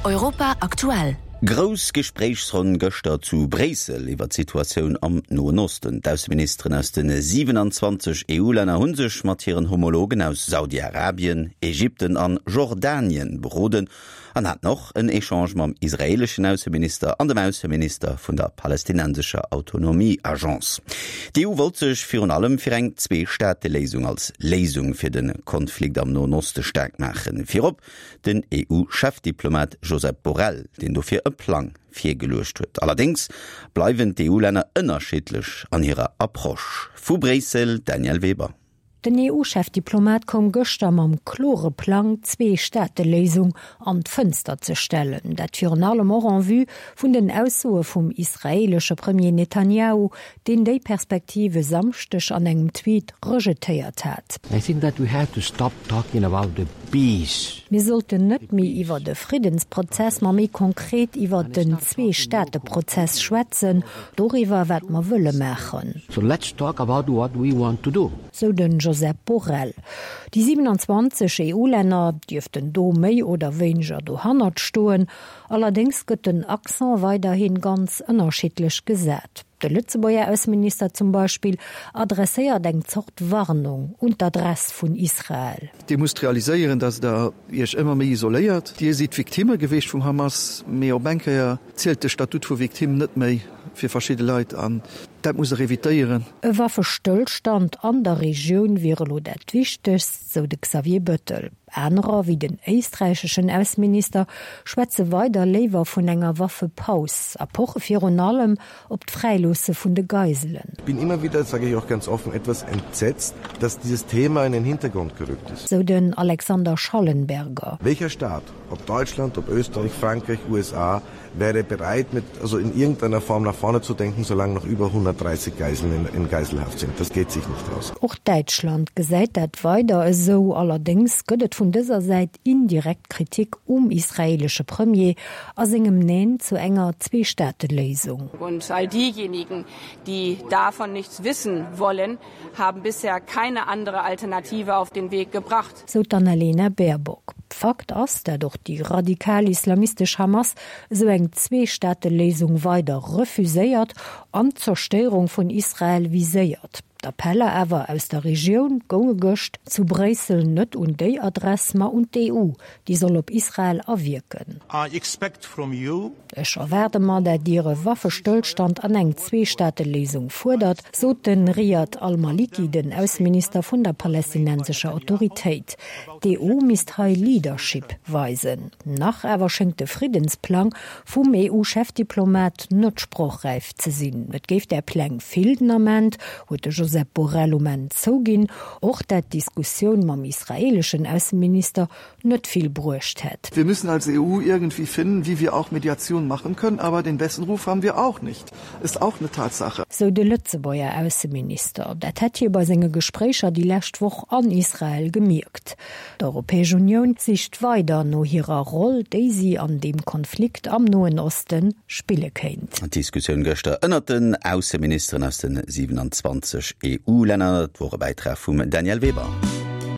Europa aktuell. Grouss Gespréichsronn gëschter zu Bréissel iwwer d'Situatioun am Noen Osten. D'Ausseministeren aus de 27 EU-Länner hu sech mat hiren Homologen aus Saudi-Arabien, Ägypten an Jordanien beroden an haten och en Echange mam israeeleschen Ausseminister an dem Ausseminister vun der palästinensescher Autonomie-Agence. D'EU wollt sech virun allem fir eng Zwee-Staate-Léisung als Léisung fir de Konflikt am Noen Oste staark maachen. Virop den EU-Chefdiplomat Josep Borrell, deen dofir e Plang virgeluecht huet. Allerdéngs bleiwen d'EU-Länner ënnerschiddlech an hirer Approche. Vu Bréissel, Danièle Weber. Den EU-Chefdiplomat koum gëschter mam klore Plang, d'Zwee-Staate-Léisung an d'Fënster ze stellen. Dat virun allem och en vue vun den Aussoe vum israeelesche Premier Netanjahu, deen déi Perspektiv e Samschdeg an engem Tweet rejetéiert hat. I think that we have to stop talking about the peace. Mir sollten net méi iwwer e Friddensprozess, ma méi konkret iwwer den Zwee-Staate-Prozess schwätzen, doriwwer, wat mer wëlle maachen. So let's talk about what we want to do. Sou den Josep Borrell. Déi 27 EU-Länner dierften do méi oder wéineger dohannert stoen. Allerdéngs gëtt den Accent weiderhi ganz ënnerschiddlech gesat. De Lëtzebuerger Ausseminister zum Beispill adresséiert eng Zort Warnung un d'Adress vun Israel. Dir musst realiséieren, datt Der Iech ëmmer méi isoléiert. Dir sidd Victimme geweecht vum Hamas, mee op eng Kéier zielt de Statut vu Victime net méi fir verschidde Leit an dat muss Der evitéieren. E Waffestëllstand an der Regioun wier elo dat Wichtegst, sou de Xavier Bettel. Anerer, wéi den éisträicheschen Ausseminister, schwätze weider léiwer vun enger Waffepaus a poche virun allem op d'Fräiloosse vun de Geiselen. Ich bin immer wieder, das sage ich auch ganz offen, etwas entsetzt, dass dieses Thema in den Hintergrund gerückt ist. Sou den Alexander Schallenberger. Welcher Staat, ob Deutschland, ob Österreich, Frankreich, USA, wäre bereit, mit, also in irgendeiner Form nach vorne zu denken, solange noch über 130 Geiseln in, in Geiselhaft sind. Das geht sich nicht aus. Och Däitschland gesäit dat weider esou. Allerdéngs gëtt et vun dëser Säit indirekt Kritik um israeelesche Premier a sengem Neen zu enger Zweestaateléisung. Und all diejenigen, die davon nichts wissen wollen, haben bisher keine andere Alternative auf den Weg gebracht. Sou d'Annalena Baerbock. Fakt ass, dat och déi radikal-islamistesch Hamas esou eng Zweestaateléisung weider refuséiert an d'Zerstéierung vun Israel viséiert. D'Appeller awer aus der Regioun gounge gëscht zu Bréissel net un déi Adress, ma un d'EU, déi soll op Israel awierken. Ech erwaarde mer, dat Dir e Waffestëllstand an eng Zweestaateléisung fuerdert, sot de Riyad al-Maliki, den Ausseminister vun der palästinensescher Autoritéit. D'EU misst hei Leadership weisen. Nach awer schéngt de Friddensplang vum EU-Chefdiplomat net sprochräif ze sinn. Et géif där Pläng vill den Ament, huet de Josep Borrell um Enn zouginn. Och dat d'Diskussioun mam israeeleschen Ausseminister net vill bruecht hätt. Wir müssen als EU irgendwie finden, wie wir auch Mediation machen können, aber den besten Ruf haben wir auch nicht, ist auch eine Tatsache. Sou de Lëtzebuerger Ausseminister. Dat hätt hie bei senge Gespréicher déi lescht Woch an Israel gemierkt. D'Europäesch Unioun sicht weider no hirer Roll, déi si an deem Konflikt am Noen Oste spille kéint. D'Diskussioun gëschter ënnert den Ausseministeren aus de 27 EU-Länner, dat wor e Bäitrag vum Danièle Weber.